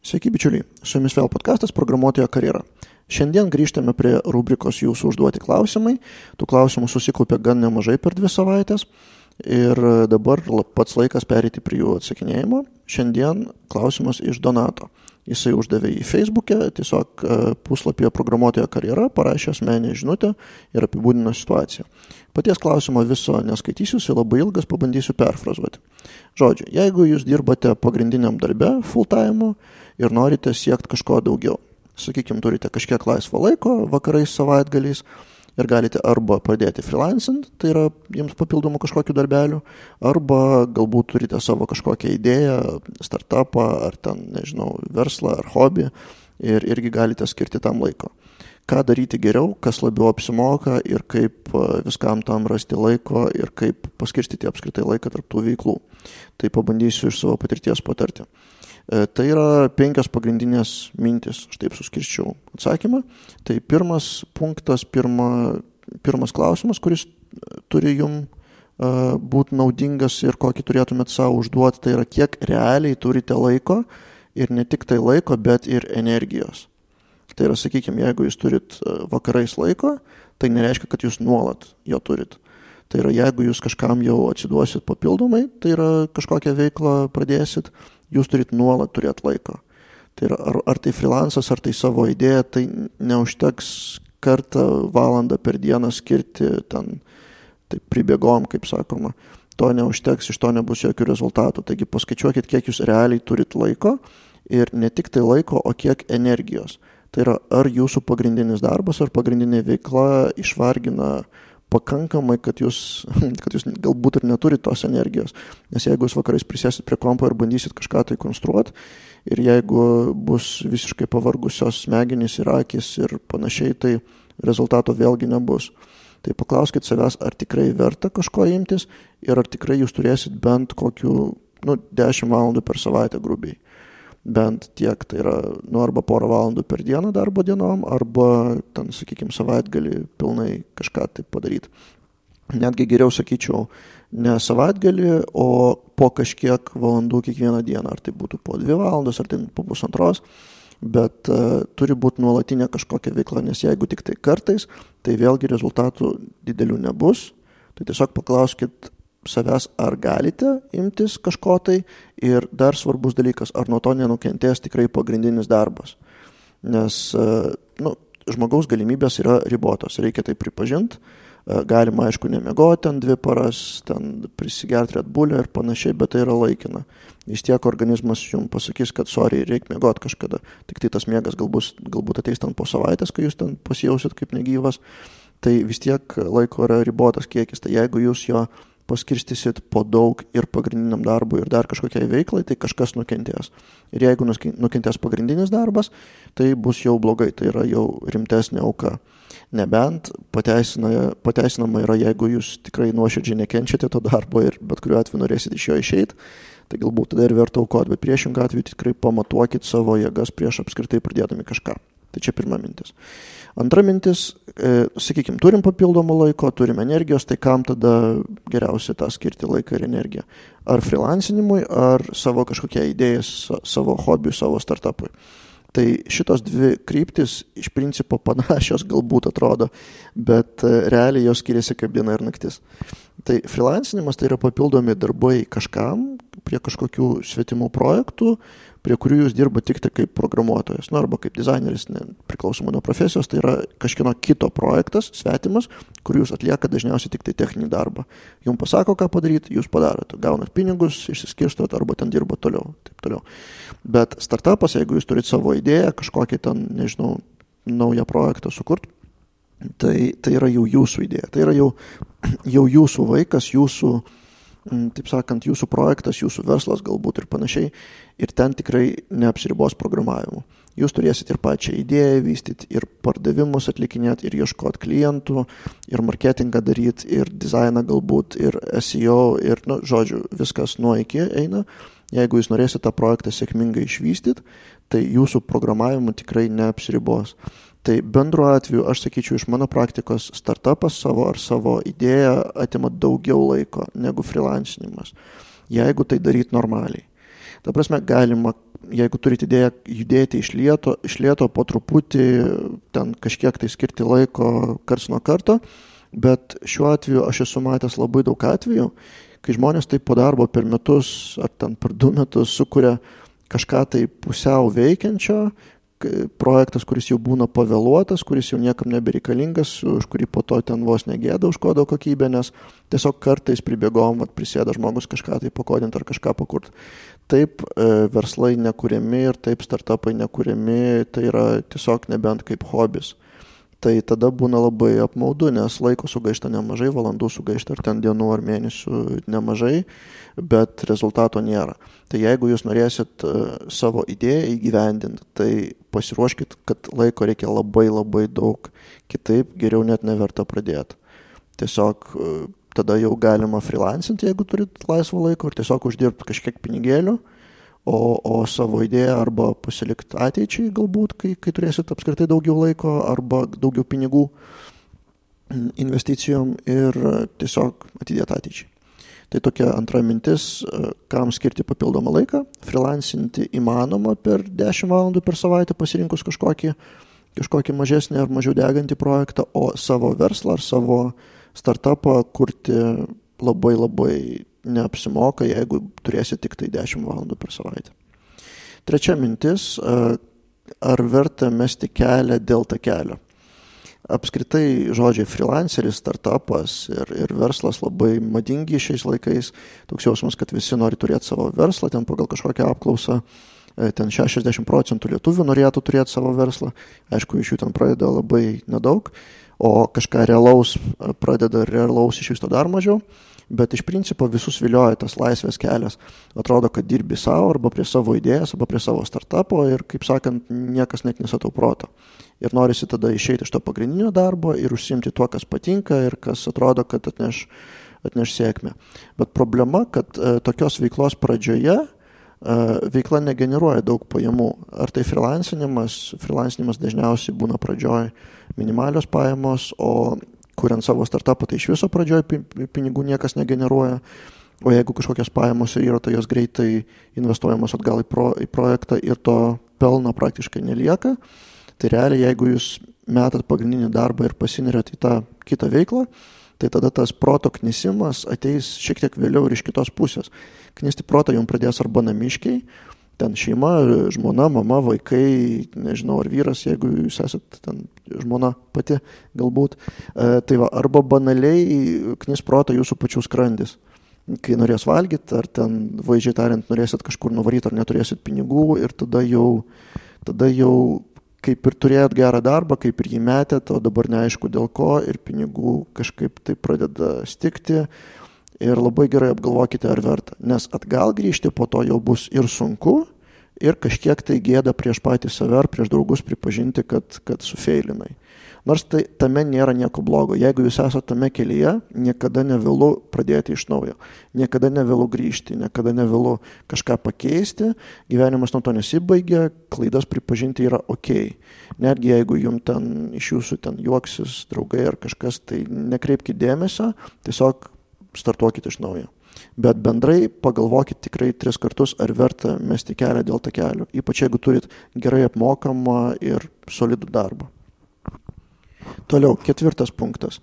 Sveiki bičiuliai, su jumis vėl podcastas Programuotojo karjera. Šiandien grįžtame prie rubrikos jūsų užduoti klausimai. Tų klausimų susikaupė gan nemažai per 2 savaitės ir dabar pats laikas pereiti prie jų atsakinėjimo. Šiandien klausimas iš Donato. Jisai uždavė į Facebook'e, tiesiog puslapyje Programuotojo karjera, parašė asmeninę žinutę ir apibūdino situaciją. Paties klausimo viso neskaitysiu, jis labai ilgas, pabandysiu perfrazuoti. Žodžiu, jeigu jūs dirbate pagrindiniam darbe full-time ir norite siekti kažko daugiau, sakykime, turite kažkiek laisvo laiko vakarais, savaitgaliais ir galite arba pradėti freelancing, tai yra jums papildomų kažkokių darbelių, arba galbūt turite savo kažkokią idėją, startupą, ar ten, nežinau, verslą, ar hobį ir irgi galite skirti tam laiko. Ką daryti geriau, kas labiau apsimoka ir kaip viskam tam rasti laiko ir kaip paskirstyti apskritai laiką tarp tų veiklų. Tai pabandysiu iš savo patirties patarti. Tai yra 5 pagrindinės mintis, aš taip suskirščiau atsakymą. Tai pirmas punktas, pirmas klausimas, kuris turi jums būti naudingas ir kokį turėtumėt savo užduoti, tai yra kiek realiai turite laiko ir ne tik tai laiko, bet ir energijos. Tai yra, sakykime, jeigu jūs turit vakarais laiko, tai nereiškia, kad jūs nuolat jo turit. Tai yra, jeigu jūs kažkam jau atsiduosit papildomai, tai yra kažkokią veiklą pradėsit, jūs turit nuolat turėti laiko. Tai yra, ar tai freelancas, ar tai savo idėja, tai neužteks kartą valandą per dieną skirti ten, tai pribėgom, kaip sakoma. To neužteks, iš to nebus jokių rezultatų. Taigi paskaičiuokit, kiek jūs realiai turit laiko ir ne tik tai laiko, o kiek energijos. Tai yra, ar jūsų pagrindinis darbas, ar pagrindinė veikla išvargina pakankamai, kad jūs galbūt ir neturit tos energijos. Nes jeigu jūs vakarais prisėsit prie kompo ir bandysit kažką tai konstruoti, ir jeigu bus visiškai pavargusios smegenys ir akys ir panašiai, tai rezultato vėlgi nebus. Tai paklauskit savęs, ar tikrai verta kažko imtis ir ar tikrai jūs turėsit bent kokių 10 valandų per savaitę grubiai. Bent tiek, tai yra arba porą valandų per dieną darbo dienom, arba ten, sakykime, savaitgalį pilnai kažką taip padaryti. Netgi geriau sakyčiau, ne savaitgalį, o po kažkiek valandų kiekvieną dieną, ar tai būtų po 2 valandos, ar tai po 1,5, bet turi būti nuolatinė kažkokia veikla, nes jeigu tik tai kartais, tai vėlgi rezultatų didelių nebus. Tai tiesiog paklauskit savęs, ar galite imtis kažko tai ir dar svarbus dalykas, ar nuo to nenukentės tikrai pagrindinis darbas. Nes žmogaus galimybės yra ribotos, reikia tai pripažinti. Galima, aišku, nemiegoti ten 2 paras, ten prisigerti Red Bull'ą ir panašiai, bet tai yra laikina. Vis tiek organizmas jums pasakys, kad reikia miegoti kažkada. Tik tai tas miegas galbūt ateis ten po savaitės, kai jūs ten pasijausit kaip negyvas. Tai vis tiek laiko yra ribotas kiekis. Tai jeigu jūs jo paskirstysit po daug ir pagrindiniam darbui ir dar kažkokiai veiklai, tai kažkas nukentės. Ir jeigu nukentės pagrindinis darbas, tai bus jau blogai, tai yra jau rimtesnė auka. Nebent pateisinama yra, jeigu jūs tikrai nuoširdžiai nekenčiate to darbo ir bet kuriuo atveju norėsit iš jo išeiti, tai galbūt tada ir verta aukoti, bet priešingą atveju tikrai pamatuokit savo jėgas prieš apskritai pradėdami kažką. Tai čia pirma mintis. Antra mintis, sakykime, turim papildomą laiko, turim energijos, tai kam tada geriausia tą skirti laiką ir energiją? Ar freelancinimui, ar savo kažkokią idėją, savo hobiui, savo startupui? Tai šitos 2 kryptis iš principo panašios galbūt atrodo, bet realiai jos skiriasi kaip diena ir naktis. Tai freelancinimas tai yra papildomi darbai kažkam, prie kažkokių svetimų projektų, prie kurių jūs dirba tik tai kaip programuotojas, arba kaip dizaineris, priklausomai nuo profesijos, tai yra kažkieno kito projektas, svetimas, kur jūs atlieka dažniausiai tik tai techninį darbą. Jums pasako, ką padaryti, jūs padarote, gaunat pinigus, išsiskirstot arba ten dirba toliau, taip toliau. Bet startupas, jeigu jūs turite savo idėją, kažkokį ten, nežinau, naują projektą sukurt, tai yra jau jūsų idėja, tai yra jau jūsų vaikas, jūsų, taip sakant, jūsų projektas, jūsų verslas galbūt ir panašiai, ir ten tikrai neapsiribos programavimu. Jūs turėsit ir pačią idėją vystyti, ir pardavimus atlikinėti, ir ieškoti klientų, ir marketingą daryti, ir dizainą galbūt, ir SEO, ir, žodžiu, viskas nuo iki eina. Jeigu jūs norėsite tą projektą sėkmingai išvystyti, tai jūsų programavimu tikrai neapsiribos. Tai bendru atveju, aš sakyčiau, iš mano praktikos startupas savo idėją atima daugiau laiko negu freelancinimas, jeigu tai daryti normaliai. Ta prasme, galima jeigu turite idėją judėti iš lėto po truputį, ten kažkiek tai skirti laiko karts nuo karto, bet šiuo atveju aš esu matęs labai daug atvejų, kai žmonės taip po darbo per metus ar ten per 2 metus sukuria kažką tai pusiau veikiančio, projektas, kuris jau būna pavėluotas, kuris jau niekam nebereikalingas, už kurį po to ten vos negėda už kodo kokybę, nes tiesiog kartais pribėgom, prisėda žmogus kažką tai pakodinti ar kažką pakurt. Taip verslai nekuriami ir taip startupai nekuriami, tai yra tiesiog nebent kaip hobis. Tai tada būna labai apmaudu, nes laiko sugaišta nemažai, valandų sugaišta ar ten dienų ar mėnesių nemažai, bet rezultato nėra. Tai jeigu jūs norėsit savo idėją įgyvendinti, tai pasiruoškit, kad laiko reikia labai labai daug, kitaip geriau net neverta pradėti. Tiesiog tada jau galima freelancinti, jeigu turit laisvo laiko ir tiesiog uždirbti kažkiek pinigėlių, o savo idėją arba pasilikti ateičiai galbūt, kai turėsit apskritai daugiau laiko arba daugiau pinigų investicijom ir tiesiog atidėti ateičiai. Tai tokia antra mintis, kam skirti papildomą laiką. Freelancinti įmanoma per 10 valandų per savaitę pasirinkus kažkokį mažesnį ar mažiau degantį projektą, o savo verslą ar savo startupą kurti labai labai neapsimoka, jeigu turėsi tik tai 10 valandų per savaitę. Trečia mintis, ar verta mesti kelią dėl takelio. Apskritai žodžiai freelanceris, startupas ir verslas labai madingi šiais laikais. Toks jausmas, kad visi nori turėti savo verslą, ten pagal kažkokią apklausą, ten 60% lietuvių norėtų turėti savo verslą. Aišku, iš jų ten pradeda labai nedaug, o kažką realaus iš viso dar mažiau. Bet iš principo visus vilioja tas laisvės kelias. Atrodo, kad dirbi savo arba prie savo idėjas, arba prie savo startupo ir, kaip sakant, niekas net nesatau proto. Ir norisi tada išeiti iš to pagrindinio darbo ir užsiimti tuo, kas patinka ir kas atrodo, kad atneš sėkmę. Bet problema, kad tokios veiklos pradžioje veikla negeneruoja daug pajamų. Ar tai freelancinimas dažniausiai būna pradžioj minimalios pajamos, o kuriant savo startupą, tai iš viso pradžioj pinigų niekas negeneruoja, o jeigu kažkokios pajamos yra, tai jos greitai investuojamos atgal į projektą ir to pelno praktiškai nelieka. Tai realiai, jeigu jūs metat pagrindinį darbą ir pasineriat į tą kitą veiklą, tai tada tas proto knisimas ateis šiek tiek vėliau ir iš kitos pusės. Knisti protą jums pradės arba namiškiai, ten šeima, žmona, mama, vaikai, nežinau, ar vyras, jeigu jūs esat ten žmona pati galbūt. Tai va, arba banaliai knis protą jūsų pačių skrandis. Kai norės valgyti, ar ten, vaizdžiai tariant, norėsit kažkur nuvaryti, ar neturėsit pinigų ir tada jau kaip ir turėjot gerą darbą, kaip ir jį metėt, o dabar neaišku dėl ko ir pinigų kažkaip tai pradeda stigti. Ir labai gerai apgalvokite, ar verta, nes atgal grįžti po to jau bus ir sunku, ir kažkiek tai gėda prieš patį save ar prieš draugus pripažinti, kad sufeilinai. Nors tame nėra nieko blogo. Jeigu jūs esate tame kelyje, niekada nevėlu pradėti iš naujo. Niekada nevėlu grįžti, niekada nevėlu kažką pakeisti. Gyvenimas nuo to nesibaigia, klaidas pripažinti yra ok. Netgi jeigu jums ten iš jūsų ten juoksis draugai ar kažkas, tai nekreipkite dėmesio, tiesiog startuokite iš naujo. Bet bendrai pagalvokit tikrai 3 kartus, ar verta mesti kelią dėl takelio, ypač jeigu turit gerai apmokamą ir solidų darbą. Toliau, 4 punktas.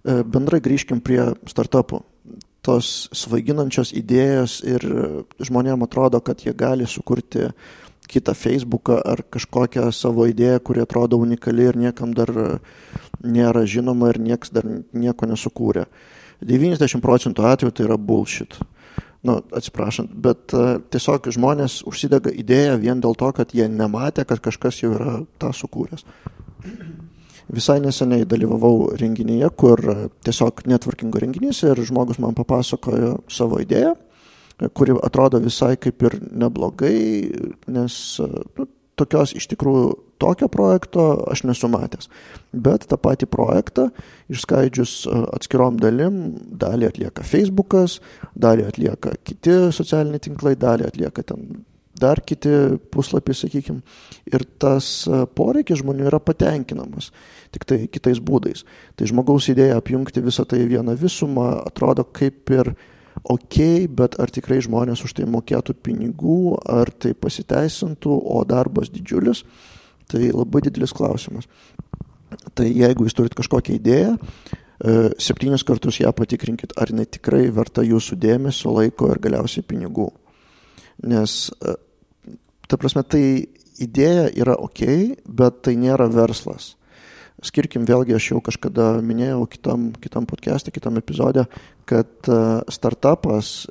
Bendrai grįžkim prie startupų. Tos svaiginančios idėjos ir žmonėms atrodo, kad jie gali sukurti kitą Facebooką ar kažkokią savo idėją, kuri atrodo unikali ir niekam dar nėra žinoma ir niekas dar nieko nesukūrė. 90% atveju tai yra bullshit. Atsiprašant, bet tiesiog žmonės užsidega idėją vien dėl to, kad jie nematė, kad kažkas jau yra tą sukūręs. Visai neseniai dalyvavau renginyje, kur tiesiog networkingo renginys ir žmogus man papasakojo savo idėją, kuri atrodo visai kaip ir neblogai, nes tokios iš tikrųjų tokio projekto aš nesu matęs. Bet tą patį projektą išskaidžius atskirom dalim, dalį atlieka Facebookas, dalį atlieka kiti socialiniai tinklai, dalį atlieka ten dar kiti puslapiai, sakykime. Ir tas poreikis žmonių yra patenkinamas, tik tai kitais būdais. Tai žmogaus idėja apjungti visą tai vieną visumą atrodo kaip ir bet ar tikrai žmonės už tai mokėtų pinigų, ar tai pasiteisintų, o darbas didžiulis, tai labai didelis klausimas. Tai jeigu jūs turit kažkokią idėją, 7 kartus ją patikrinkit, ar jinai tikrai verta jūsų dėmesio, laiko ir galiausiai pinigų. Nes, ta prasme, tai idėja yra bet tai nėra verslas. Skirkim vėlgi, aš jau kažkada minėjau kitam podcast'e, kitam epizode, kad startupas,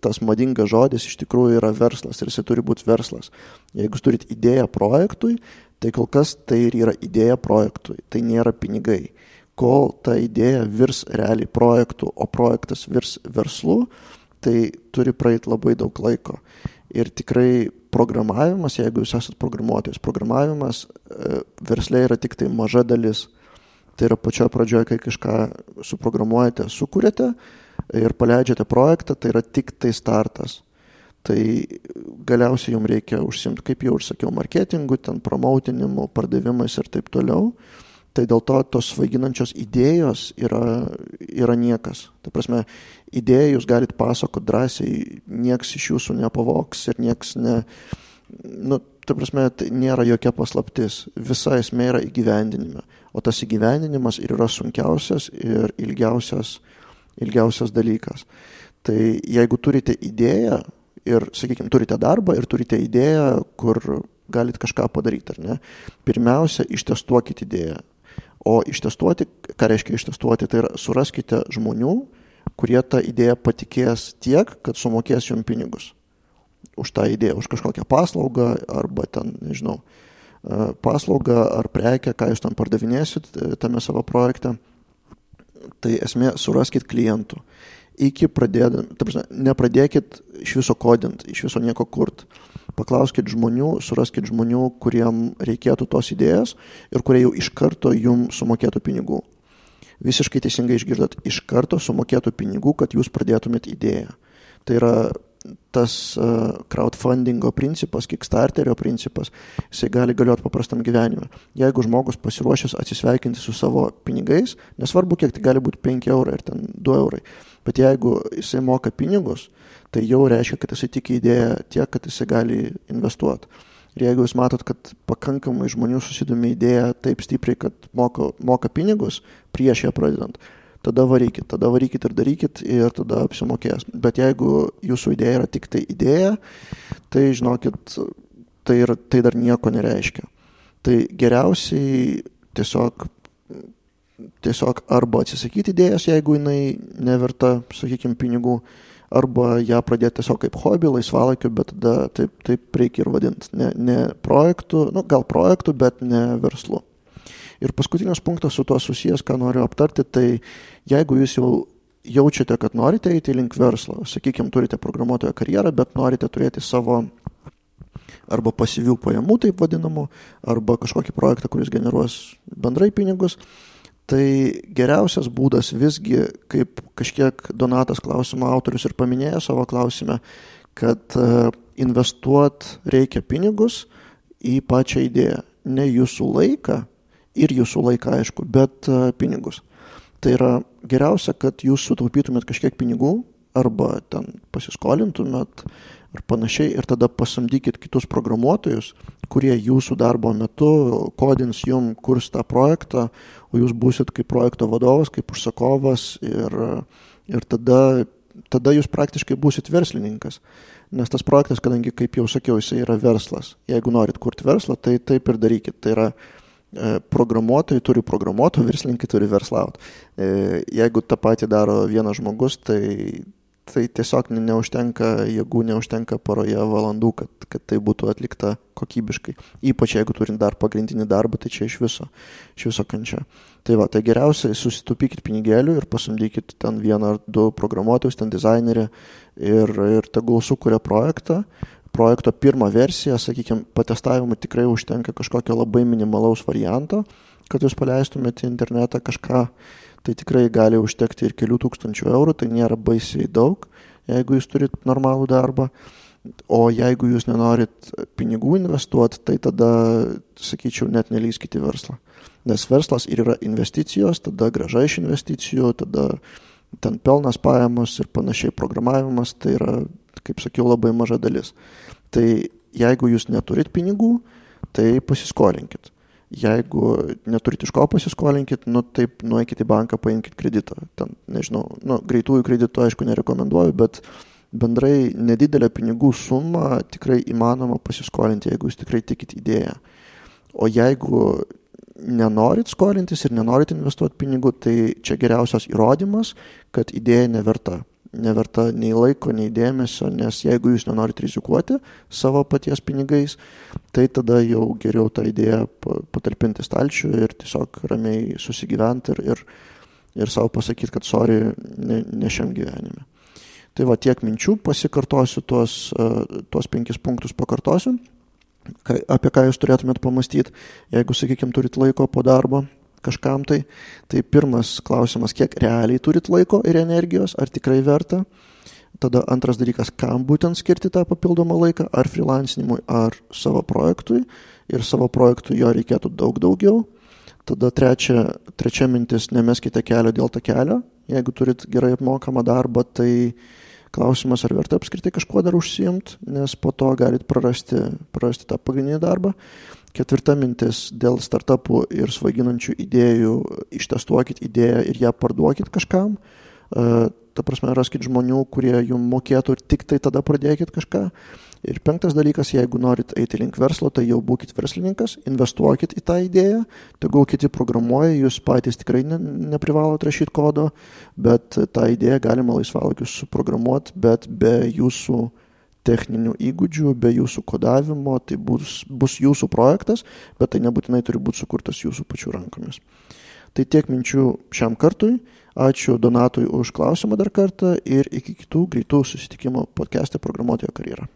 tas madingas žodis, iš tikrųjų yra verslas ir jisai turi būti verslas. Jeigu jūs turit idėją projektui, tai kol kas tai ir yra idėja projektui, tai nėra pinigai. Kol ta idėja virs realiai projektų, o projektas virs verslu, tai turi praeiti labai daug laiko. Ir tikrai programavimas, jeigu jūs esat programuotojas, programavimas versle yra tik tai maža dalis. Tai yra pačioje pradžioje, kai kažką suprogramuojate, sukūrėte ir paleidžiate projektą, tai yra tik tai startas. Tai galiausiai jums reikia užsimti, kaip jau ir sakiau, marketingu, ten promoutinimu, pardavimais ir taip toliau. Tai dėl to tos svaiginančios idėjos yra niekas. Ta prasme, idėją jūs galite pasakoti drąsiai, nieks iš jūsų nepavoks ir nieks ta prasme, tai nėra jokia paslaptis. Visa esmė yra įgyvendinime. O tas įgyvendinimas ir yra sunkiausias ir ilgiausias dalykas. Tai jeigu turite idėją ir, sakykime, turite darbą ir turite idėją, kur galite kažką padaryti, ar ne? Pirmiausia, ištestuokite idėją. O ištestuoti, ką reiškia ištestuoti, tai yra suraskite žmonių, kurie tą idėją patikės tiek, kad sumokės jums pinigus už tą idėją, už kažkokią paslaugą arba ten, nežinau, paslaugą ar prekę, ką jūs tam pardavinėsit tame savo projekte. Tai esmė, suraskit klientų. Nepradėkit iš viso kodint, iš viso nieko kurt. Paklauskit žmonių, suraskit žmonių, kuriem reikėtų tos idėjos ir kurie jau iš karto jums sumokėtų pinigų. Visiškai teisingai išgirdot, iš karto sumokėtų pinigų, kad jūs pradėtumėt idėją. Tai yra tas crowdfundingo principas, Kickstarterio principas, jisai gali galioti paprastam gyvenime. Jeigu žmogus pasiruošęs atsisveikinti su savo pinigais, nesvarbu, kiek tai gali būti 5 eurai ir ten 2 eurai, bet jeigu jisai moka pinigus, tai jau reiškia, kad jisai tiki idėją tiek, kad jisai gali investuoti. Ir jeigu jūs matot, kad pakankamai žmonių susidomi idėją taip stipriai, kad moka pinigus prieš ją pradedant, tada varykit ir darykit ir tada apsimokės. Bet jeigu jūsų idėja yra tik tai idėja, tai žinokit, tai dar nieko nereiškia. Tai geriausiai tiesiog arba atsisakyti idėjas, jeigu jinai neverta, sakykime, pinigų, arba ją pradėti tiesiog kaip hobį, laisvalaikiu, bet tada taip reikia ir vadinti. Ne projektų, gal projektų, bet ne verslu. Ir paskutinis punktas su tuo susijęs, ką noriu aptarti, tai jeigu jūs jau jaučiate, kad norite eiti link verslo, sakykime, turite programuotojo karjerą, bet norite turėti savo arba pasyvių pajamų, taip vadinamų, arba kažkokį projektą, kuris generuos bendrai pinigus, tai geriausias būdas visgi, kaip kažkiek Donatas klausimo autorius ir paminėjo savo klausime, kad investuot reikia pinigus į pačią idėją, ne jūsų laiką, ir jūsų laiką, aišku, bet pinigus. Tai yra geriausia, kad jūs sutaupytumėt kažkiek pinigų arba ten pasiskolintumėt ar panašiai ir tada pasamdykit kitus programuotojus, kurie jūsų darbo metu kodins jum, kurs tą projektą, o jūs būsit kaip projekto vadovas, kaip užsakovas ir tada jūs praktiškai būsit verslininkas. Nes tas projektas, kadangi, kaip jau sakiau, jisai yra verslas. Jeigu norit kurti verslą, tai taip ir darykit. Tai yra programuotojai turi programuotojų, verslininkai turi verslauti. Jeigu tą patį daro vienas žmogus, tai tiesiog neužtenka jėgų, neužtenka poroje valandų, kad tai būtų atlikta kokybiškai. Ypač jeigu turint dar pagrindinį darbą, tai čia iš viso kančia. Tai geriausiai susitaupykit pinigėlių ir pasamdykit ten 1 ar 2 programuotojus, ten dizainerį ir tegul sukuria projekto pirmą versiją, sakykime, patestavimui tikrai užtenka kažkokio labai minimalaus varianto, kad jūs paleistumėte į internetą kažką, tai tikrai gali užtekti ir kelių tūkstančių eurų, tai nėra baisiai daug, jeigu jūs turit normalų darbą, o jeigu jūs nenorit pinigų investuoti, tai tada, sakyčiau, net nelįskite į verslą. Nes verslas ir yra investicijos, tada grąža iš investicijų, tada ten pelnas, pajamos ir panašiai programavimas, tai yra, kaip sakiau, labai maža dalis. Tai jeigu jūs neturit pinigų, tai pasiskolinkit. Jeigu neturit iš ko pasiskolinkit, taip nueikit į banką, paimkit kreditą. Ten, nežinau, greitųjų kreditų aišku nerekomenduoju, bet bendrai nedidelę pinigų sumą tikrai įmanoma pasiskolinti, jeigu jūs tikrai tikit idėją. O jeigu nenorit skolintis ir nenorit investuoti pinigų, tai čia geriausias įrodymas, kad idėja neverta nei laiko, nei dėmesio, nes jeigu jūs nenorit rizikuoti savo paties pinigais, tai tada jau geriau tą idėją patalpinti stalčių ir tiesiog ramiai susigyventi ir savo pasakyti, kad sorry, ne šiam gyvenime. Tai va, tiek minčių, pasikartosiu tuos 5 punktus pakartosiu, apie ką jūs turėtumėt pamastyti, jeigu, sakykime, turit laiko po darbo kažkam tai pirmas klausimas, kiek realiai turit laiko ir energijos, ar tikrai verta. Tada antras dalykas, kam būtent skirti tą papildomą laiką, ar freelancinimui, ar savo projektui, ir savo projektui jo reikėtų daug daugiau. Tada trečia mintis, nemeskite kelio dėl takelio. Jeigu turit gerai apmokamą darbą, tai klausimas, ar verta apskritai kažkuo dar užsiimti, nes po to galit prarasti tą pagrindinį darbą. Ketvirta mintis, dėl startupų ir svaiginančių idėjų, ištestuokit idėją ir ją parduokit kažkam. Ta prasme, raskit žmonių, kurie jums mokėtų ir tik tai tada pradėkit kažką. Ir 5 dalykas, jeigu norit eiti link verslo, tai jau būkit verslininkas, investuokit į tą idėją, tegul kiti programuoja, jūs patys tikrai neprivalot rašyti kodo, bet tą idėją galima laisvalaikiu suprogramuoti, bet be jūsų techninių įgūdžių, be jūsų kodavimo, tai bus jūsų projektas, bet tai nebūtinai turi būti sukurtas jūsų pačių rankomis. Tai tiek minčių šiam kartui. Ačiū Donatui už klausimą dar kartą ir iki kitų greitų susitikimų podcast'e Programuotojo karjera.